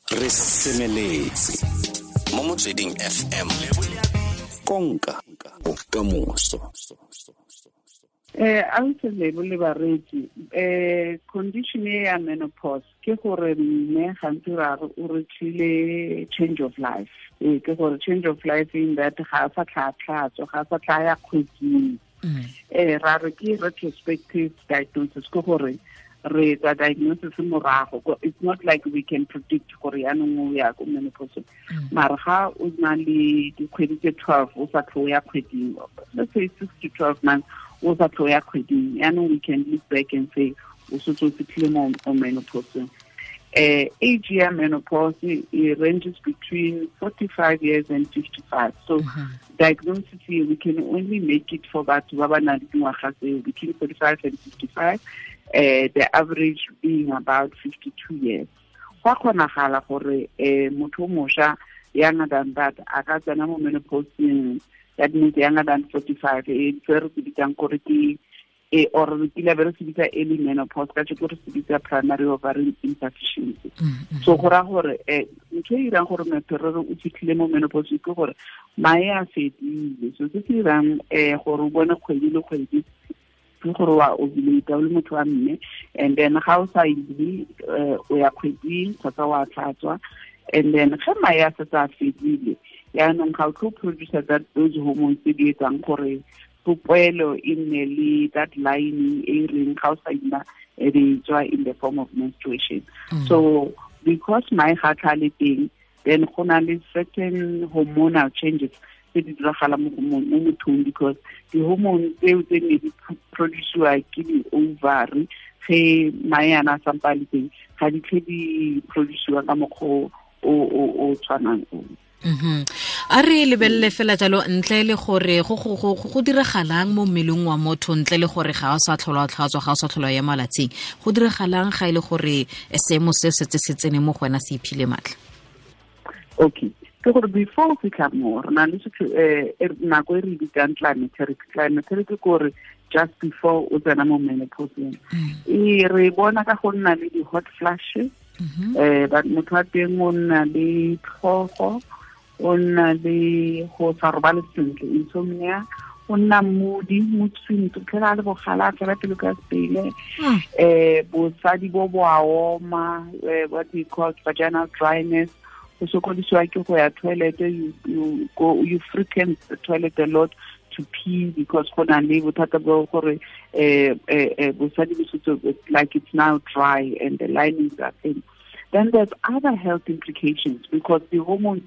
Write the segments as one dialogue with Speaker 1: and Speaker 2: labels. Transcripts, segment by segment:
Speaker 1: Re semeletse mo Motsweding FM, konka bokamoso.
Speaker 2: Ausi Lebo le bareetsi, condition e ya menopause ke gore mme gantsi ra re o reachile change of life. Ke gore change of life in that ga a sa tlha tlhatswa, ga a sa tlha ya kgweding. Ra re ke retrospective diagnosis, ke gore re etsa diagnosis morago. It's not like we can predict gore yaanong o ya ko menopause. Mara ga o na le dikgwedi tse 12 o sa tlho ya kgweding, let's say 6 to 12 months o sa tlho ya kgweding, yaanong we can look back and say o setse o fitlhile mo menopause. Age ya menopause, it ranges between 45 years and 55. So diagnosis here, we can only make it for batho ba ba nang le dingwaga tseo between 45 and 55, the average being about 52 years. Go a kgonagala gore motho o mošwa younger than that a ka tsena mo menopauseng, that means younger than 45, e se re se bitsang gore ke e or re kile be re se bitsa early menopause, ka jeko re se bitsa primary ovarian insufficiency. So go raya gore ntho e irang gore motho re re o fitlhile mo menopause ke gore mae a fedile. So se se irang gore o bone kgwedi le kgwedi ke gore wa ovulate o le motho wa mme, and then ga o sa ile o ya kgweding kgotsa wa tlhatswa, and then ge mae a setse a fedile, yaanong ga o tlo producer that those hormones tse di etsang gore popelo e nne le that lining e reng ga o sa ima e be e tswa in the form of menstruation. So because mae ga tlha le teng, then go na le certain hormonal changes tse di diragalang mo mothong, because di-hormone tseo tse ne di produciwa ke di-ovary ge mae ana a sampa a le teng, ga di tlhe di produciwa ka mokgwa o tshwanang o.
Speaker 3: A re lebelele fela jalo ntle le gore go diragalang mo mmeleng wa motho, ntle le gore ga o sa tlhola tlhatswa, ga o sa tlhola ya malatsing, go diragalang ga e le gore seemo se setse se tsene mo go wena, se iphile maatla?
Speaker 2: Okay, ke gore before o fitlha mo, re na le nako e re bitsang climacteric. Climacteric ke gore just before o tsena mo menopauseng, e re bona ka go nna le di-hot flashes. But motho wa teng o nna le tlhogo, o nna le go sa robale sentle, insomnia, o nna moody, mood swings, o tlhela a le bogala, a fela pelo ka sepele. Bosadi bo bo a oma, what we call vaginal dryness, go sokodisiwa ke go ya toilet, you frequent the toilet a lot to pee, because go na le bothata bo gore bosadi bo setse like it's now dry and the linings are thin. Then there's other health implications, because the hormones,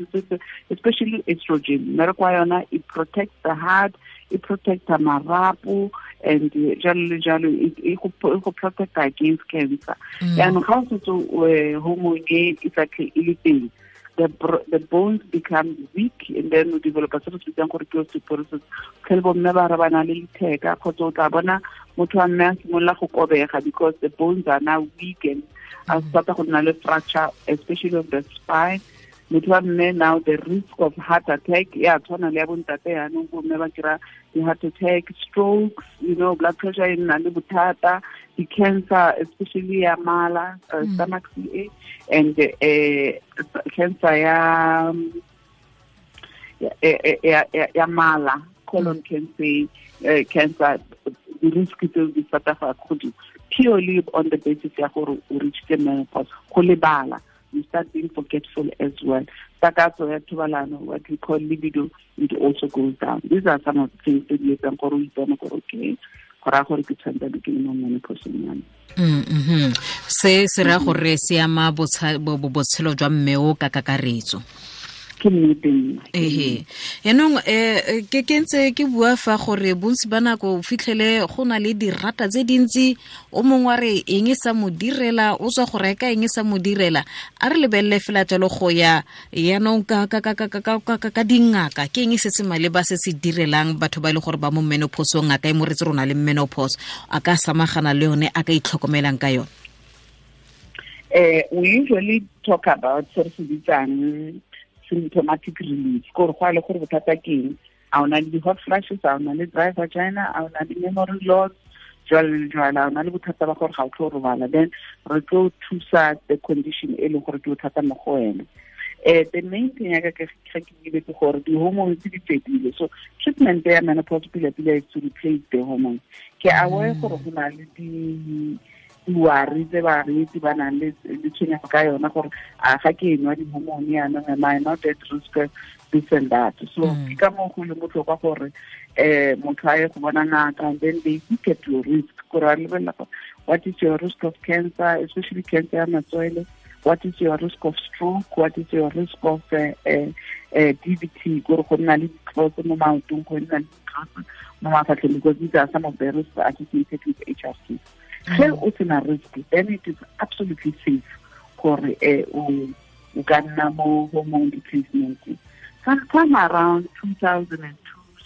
Speaker 2: especially estrogen, mmereko wa yona, it protects the heart, it protects the marapo, and jalo le jalo, e go protect against cancer. Yaanong ga o setse hormone e e sa tlhe e le teng, the bones become weak, and then we develop a se re se bitsang gore ke osteoporosis. Tlhele bomme ba re ba na le letheka, kgotsa o tla bona motho wa mme a simolola go kobega because the bones are now weak and a start go nna le fracture, especially of the spine. Motho wa mme now the risk of heart attack ya tshwana le ya bontate, yaanong bomme ba kry-a di-heart attack, strokes, blood pressure e nna le bothata, di-cancer, especially ya mala, stomach CA, and cancer ya mala, colon cancer, cancer, the risk tseo di start go godimo purely on the basis ya gore o reachile menopause. Go lebala, you start being forgetful as well. Takatso ya thobalano, what we call libido, it also goes down. These are some of the things that di etsang gore o ipone gore okay, go raya gore ke tshwanetse ke le mo menopauseng ya me.
Speaker 3: Se se raya gore se ama botshelo jwa mme o ka kakaretso.
Speaker 2: Ke nnete nna.
Speaker 3: Ehe. Yaanong, ke ntse ke bua fa gore bontsi ba nako o fitlhele go na le dirata tse dintsi, o mongwe wa re eng e sa mo direla, o tswa go reka eng e sa mo direla. A re lebelele fela jalo go ya yaanong ka dingaka, ke eng se se maleba se se direlang batho ba e le gore ba mo menopauseng, ngaka e mo retse rona le menopause, a ka samagana le yone, a ka itlhokomelang ka yone?
Speaker 2: We usually talk about se re se bitsang symptomatic relief, gore go a le gore bothata ke eng, a o na le di-hot flashes, a o na le dry vagina, a o na le memory loss, Jwalo le jwalo, o na le bothata ba gore ga o tlo robala, then re tlo thusa the condition e leng gore ke bothata mo go wena. The main thing ya ka ke ke ke gore di-hormones di fedile, so treatment ya menopause pila pila is to replace the hormones. Ke aware gore go na le di-worry tse bareetsi ba nang le tshwenyego ka yona gore a ga ke nwa di-hormone yanong, am I not at risk of this and that? So ke ka moo go leng botlhokwa gore motho a ye go bona ngaka, and then they look at your risk, gore ba lebelela gore what is your risk of cancer, especially cancer ya matswele, what is your risk of stroke, what is your risk of DVT, gore go nna le ditlotse mo maotong, go nna le ditlotse mo mafatlheng, because these are some of the risks associated with HRT. Ge o sena risk, then it is absolutely safe gore o ka nna mo hormone replacement. Sometime around 2002,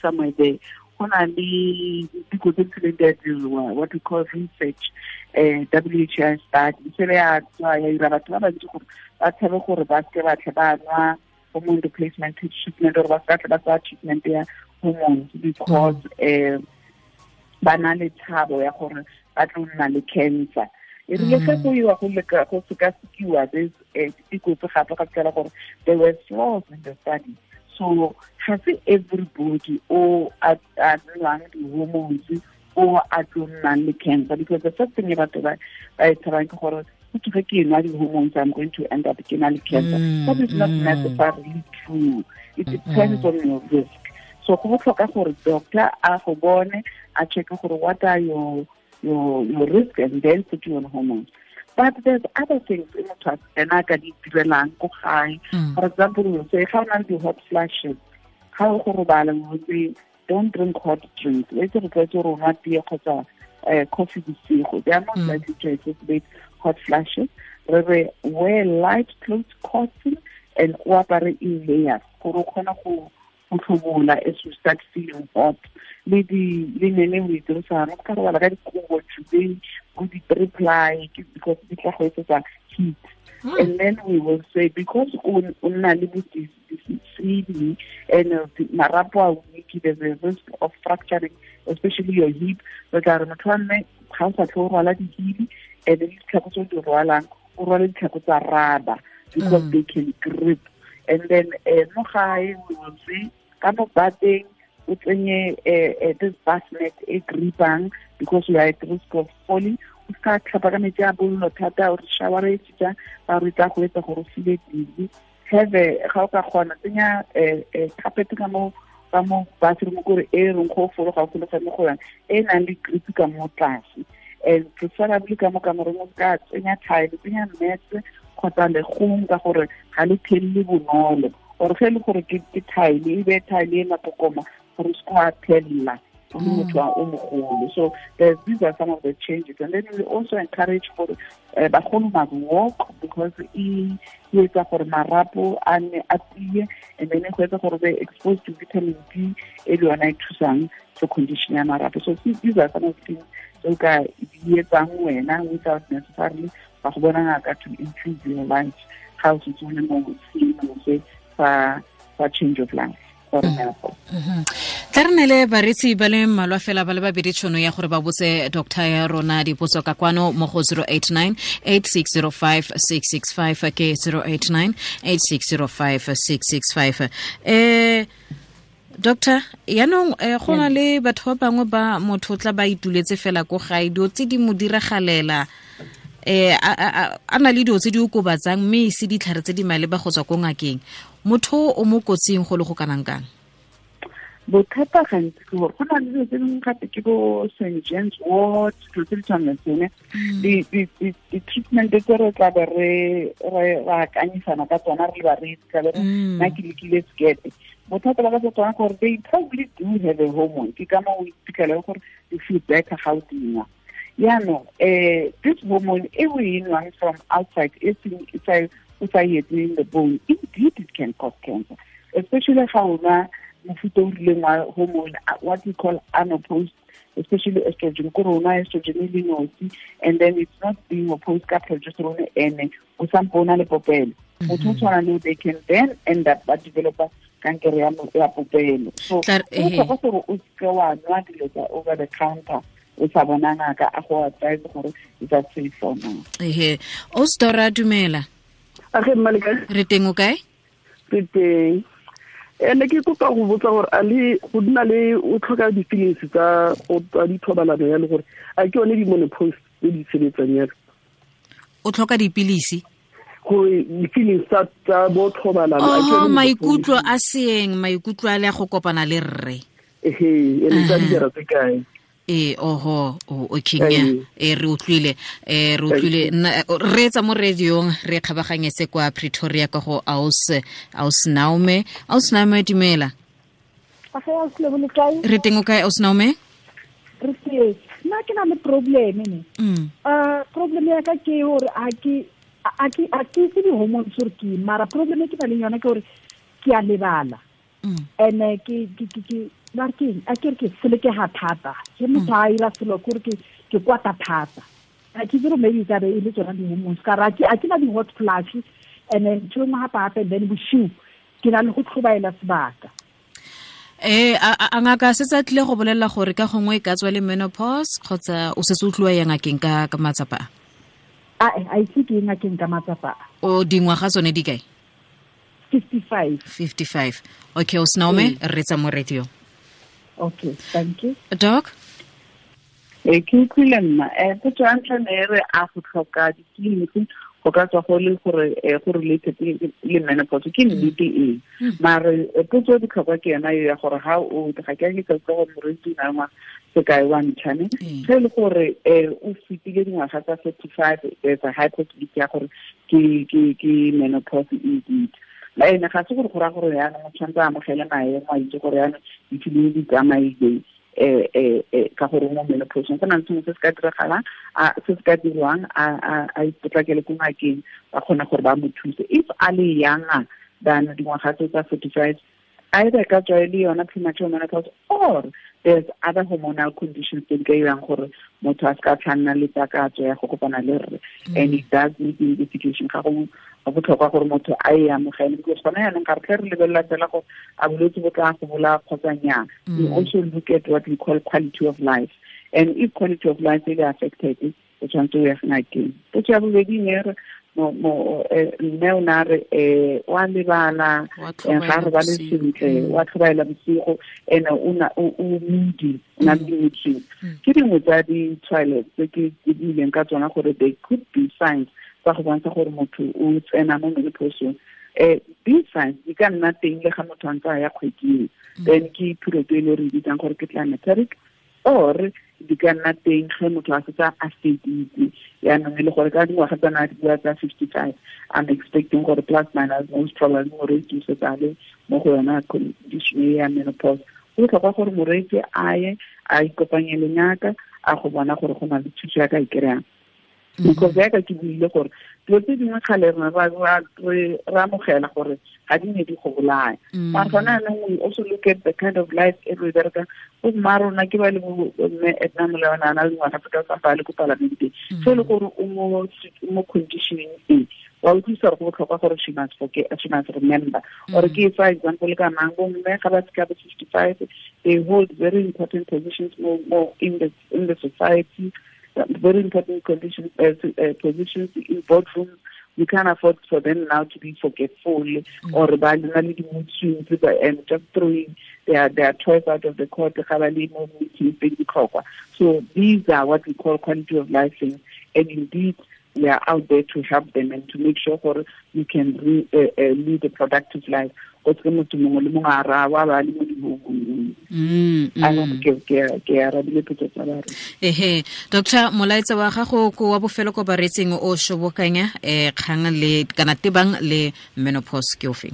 Speaker 2: somewhere there, go na le diteko tse tsileng di a diriwa, what we call research, WHO study, se le ya tswa ya ira batho ba bantsi gore ba tshabe gore ba seke ba tle ba nwa hormone replacement treatment, or ba seka tle ba tsaya treatment ya hormones, because ba na le tshabo ya gore ba tlo nna le cancer. E rile ge go iwa go leka go sekasekiwa this diteko tse gape, ga fitlhela gore there were flaws in the study. So ga se everybody o a nwang di-hormones o a tlo nnang le cancer, because the first thing e batho ba e tshabang ke gore go ge ke nwa di-hormones, I'm going to end up ke na le cancer. That is not necessarily true. It depends on your risk. So go botlhokwa gore doctor a go bone, a check gore what are your risk, and then put you on hormones. But there's other things in motho ena ka di direlang ko gae. For example, we say ga o na le di-hot flashes, ga o go robala, we say don't drink hot drinks. Re itse re tlwaetse gore o nwa tee kgotsa coffee bosigo. They are not likely to exacerbate hot flashes. Re re wear light clothes, cotton, and o apare in layers gore o kgone go tlhobola as you start feeling hot. Le di le nene o e dirisang, o ka robala ka dikobo today, go di-three-ply, because di tla go etsetsa heat. And then we will say, because o nna le bo CD and marapo a weak, there's a risk of fracturing, especially your hip. Re tla re motho wa mme ga o sa tle o rwala dihili, and le ditlhako tse o di rwalang, o rwale ditlhako tsa rubber, because they can grip. And then mo gae we will say ka mo bateng o tsenye this bassinet e gripang, because you are at risk of falling. O ska tlhapa ka metsi a bollo thata, o re shower e tsa ba re tla go etsa gore o feel dizzy. Have ga o ka kgona tsenya carpet ka mo bathroom gore e reng go fologa o fologa mo go yona, e nang le grip ka mo tlase. And preferably ka mo kamoreng o ka tsenya tile, tsenya mat kgotsa legong, ka gore ga le thelele bonolo, or ge e le gore ke tile, e be tile e mapokoma gore o se wa thella o le motho o mogolo. So these are some of the changes. And then we also encourage for bagolo must walk, because e etsa gore marapo a nne a tie, and then go etsa gore be exposed to vitamin D e le yona e thusang for condition ya marapo. So these are some of the things tse o ka di etsang wena without necessarily ba go bona ngaka to improve your life ga o setse o le mo seemong se sa change of life.
Speaker 3: Tla re nele baretsi ba le mmalwa fela ba le babedi tšhono ya gore ba botse doctor ya rona dipotso ka kwano mo go 089 8605 665 ke 089 8605 665. Doctor, yaanong go na le batho ba bangwe ba motho tla ba ituletse fela ko gae, dilo tse di mo diragalela, a na le dilo tse di okobatsang mme e se ditlhare tse di maleba go tswa ko ngakeng, motho o mo kotsing go le go kanang kang?
Speaker 2: Bothata gantsi ke gore go na le dilo tse dingwe gape ke bo St. John's wort, dilo tse di tshwanang le tsone. Di-treatment tse re tla be re akanyisana ka tsona re le bareetsi, tla be re nna ke lekile sekete. Bothata ba ka tsa tsona gore they probably do have a hormone, ke ka moo o iphitlhela gore you feel better ga o dinwa. Yaanong this hormone e o e nwang from outside, e seng o sa e etseng the bone, indeed it can cause cancer, especially ga o nwa mofuta o rileng wa hormone, what we call unopposed, especially estrogen, ko rona estrogen e le nosi, and then it's not being opposed ka progesterone ene o sampo o na le popelo. Motho o tshwana le they can then end up ba developa kankere ya popelo. So go tlhoka gore o seke wa nwa dilo tsa over the counter o sa bona ngaka a go advise gore is that safe for now.
Speaker 3: Ehe, o stora dumela.
Speaker 4: A ge mma le kae?
Speaker 3: Re teng, o kae?
Speaker 4: Re teng. Ene ke kopa go botsa gore a le go nna le o tlhoka di-feelings tsa go tsa dithobalano ya le gore a ke yone di-menopause tse di sebetsang yalo.
Speaker 3: O tlhoka dipilisi?
Speaker 4: Gore di-feelings tsa bo thobalano.
Speaker 3: Oh, maikutlo a seeng, maikutlo a le go kopana le rre.
Speaker 4: Ehe, ene tsa dijara tse kae?
Speaker 3: Oho, okay, re utlwile, re etsa mo radiong, re kgabaganyetse kwa Pretoria ka go Aus Naume. Aus Naume, dumela. Re teng o kae, Aus Naume?
Speaker 5: Re teng. Nna ke na le problem ne. Problem ya ka ke hore a ke itse di-hormones gore ke eng, mara problem e ke na leng yona ke hore ke a lebala. And ke ba ke a ke re ke selekega thata. Ke motho a ira selo kore ke kwata thata. A ke tsere maybe ka be e le tsona di-hormones. Ka re a ke na di-hot flash, and then ntho e nngwe gape-gape, then bosiu ke na le go tlhobaela sebaka.
Speaker 3: A ngaka se tsa tlile go bolelela gore ka gongwe e ka tswa le menopause kgotsa o setse o tliwa ya ngakeng ka matsapa
Speaker 5: a? A ise ke ye ngakeng ka matsapa a.
Speaker 3: O dingwaga tsone di kae?
Speaker 5: 55.
Speaker 3: 55. Okay, o Snaume, re tsa mo radio.
Speaker 5: Okay, thank you.
Speaker 3: Doc?
Speaker 2: Ke utlwile nna. Potso ya ntlha ne re a go tlhoka ditleliniki go ka tswa go le gore go related le menopause ke nnete eng. Mare potso e botlhokwa ke yona ya gore ha o ga ke a ke ka gore moreetsi o na le ngwaga sekai wa ntlhane. Ge e le gore o fetile dingwaga tsa 45, there's a high possibility ya gore ke menopause indeed. Ene ga se gore go raya gore yaanong o tshwanetse a amogele maemo a itse gore yaanong difilimi di tsamaile ka gore mo menopauseng go na le sengwe se se ka diragalang, se se ka dirwang, a ipotlakele ko ngakeng ba kgone gore ba mo thuse. If a le younger than dingwaga tse tsa 45, either ka tswa e le yona premature menopause or there's other hormonal conditions tse di ka irang gore motho a se ka tlhanna le takatso ya go kopana le rre. And it does need investigation. Ga go botlhokwa gore motho a e amogele, because gona yaanong ga re tle re lebelela fela gore a bolwetse bo tla go bolaya kgotsa nnyaa. We also look at what we call quality of life, and if quality of life e le affected, o tshwanetse o ye ngakeng. Potso ya bobedi ne re mme o ne a re o a lebala, ga a robale sentle, o a tlhobaela bosigo, and o moody, o na le di-mood swings. Ke dingwe tsa ditshwaelo tse ke buileng ka tsona gore they could be signs tsa go bontsha gore motho o tsena mo menopauseng. These signs di ka nna teng le ga motho a ntse a ya kgweding, then ke period e le re bitsang gore ke climacteric, or di ka nna teng ge motho a setse a feditse yaanong e le gore ka dingwaga tsa na di bua tsa 55, I'm expecting gore plus minus most probably moreetsi o setse a le mo go yona condition e ya menopause. Go botlhokwa gore moreetsi a ye a ikopanye le ngaka a go bona gore go na le thuso ya ka e kry-ang. Because yaka ke buile gore dilo tse dingwe kgale re amogela gore ga di ne di go bolaya. Mara gona jaanong we also look at the kind of life e re e berekang. Bo mma rona ke ba le bo mme Edna Molewana a na le dingwaga tse ka tsa le ko palamenteng. So e le gore o mo conditioning e, wa utlwisa gore go botlhokwa gore she must forget, she must remember. Or ke fa example ka mang, bo mme ga ba fika bo 55, they hold very important positions more in the society. Very important conditions, positions in boardrooms. We can't afford for them now to be forgetful or mood swings and just throwing their toys out of the court. So these are what we call quality of life things, and indeed we are out there to help them and to make sure we can lead a productive life. Ke arabile potso tsa ba re.
Speaker 3: Ehe, Doctor, molaetsa wa gago ko wa bofelo ko baretseng o shobokanya kgang le kana tebang le menopause ke ofeng?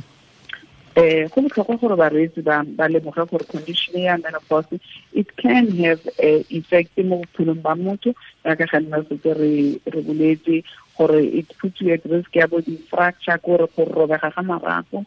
Speaker 2: Go botlhokwa gore bareetsi ba lemoge gore condition ya menopause it can have effect mo bophelong ba motho, jaaka ga nna setse re boletse gore it puts you at risk ya bo di-fracture, kore go robega ga marapo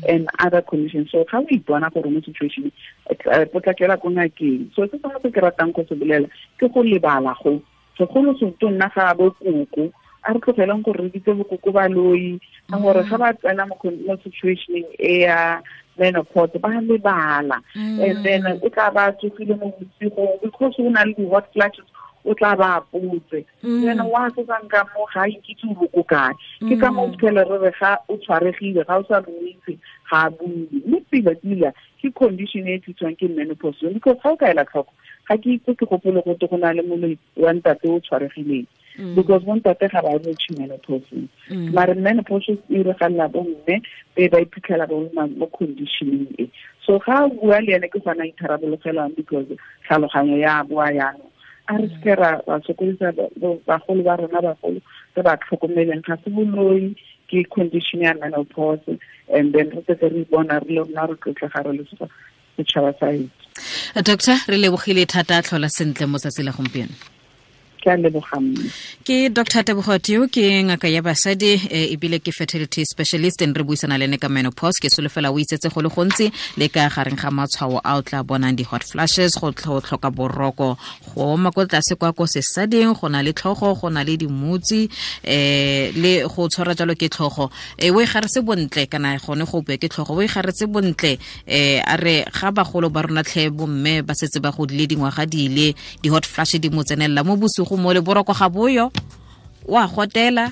Speaker 2: and other conditions. So ga o ipona gore mo situation potlakela ko ngakeng. So se sengwe se ke ratang go se bolela ke go lebala go segolo se nna ga bo koko A re tlogeleng gore re bitse bokoko baloi, ka gore ga ba tsena mo situationeng e ya menopause ba lebala. And then o tla ba tsogile mo bosigong because o na le di-hot flashes, o tla ba apotse. Then wa setsang ka mo ga a ikitse o boko kae. Ke ka mo phela re re ga o tshwaregile, ga o sa mo itse, ga a bue. Mme pila-pila ke condition e tliswang ke menopause, because ga o ka ela tlhoko, ga ke itse ke gopole gote go na le moloi wa ntate o tshwaregileng, because bontate ga ba reach menopause. Mare menopause e iragalela bomme be ba iphitlhela ba mo conditioning e. So ga o bua le ene ke gona itharabologelang, because tlhaloganyo ya boa yanong. A re seke ra sokodisa bagolo ba rona, bagolo re ba tlhokomeleng, ga se boloi, ke condition ya menopause. And then re setse re bona re le rona re tlotlega re le setšhaba sa hetso.
Speaker 3: Doctor, re lebogile thata, tlhola sentle mo tsatsi la gompieno.
Speaker 2: Ke a leboga mme.
Speaker 3: Ke Dr. Tebogo Tio, ke ngaka ya basadi ebile ke fertility specialist, and re buisana le ene ka menopause. Ke solofela o itsetse go le gontsi le ka gareng ga matshwao a o tla bonang, di-hot flashes, go tlhoka boroko, go oma ko tlase kwa ko sesading, go na le tlhogo, go na le dimutsi, le go tshwara jalo ke tlhogo. O e garetse bontle, kana gone go bue ke tlhogo, o e garetse bontle. A re ga bagolo ba rona tlhe bomme ba setse ba godile dingwaga di ile, di-hot flash di mo tsenelela mo bosigo mo le boroko ga boyo, wa gotela,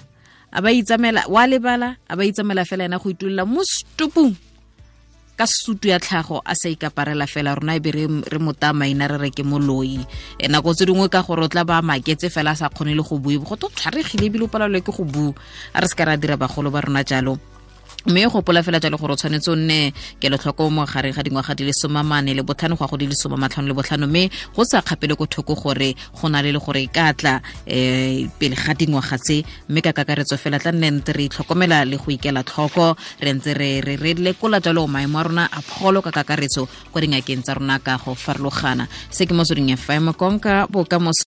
Speaker 3: a ba itsamela, wa lebala, a ba itsamela fela ena go itulela mo stupung ka sutu ya tlhago, a sa ikaparela fela. Rona e be re mota maina re re ke moloi. Nako tse dingwe ka gore o tla ba maketse fela a sa kgone le go bua, go to tshwaregile ebile o palelwe ke go bua. A re se ka ra dira bagolo ba rona jalo. Mme gopola fela jalo gore o tshwanetse o nne kelotlhoko mo gareng ga dingwaga di le 45 go ya go di le 55, mme go sa kgapele ko thoko gore go na le gore e ka tla pele ga dingwaga tse. Mme ka kakaretso fela tla nne ntse re itlhokomela le go ikela tlhoko, re ntse re lekola jalo maemo a rona a pholo ka kakaretso kwa dingakeng tsa rona ka go farologana. Se ke Motsweding FM, konka bokamoso.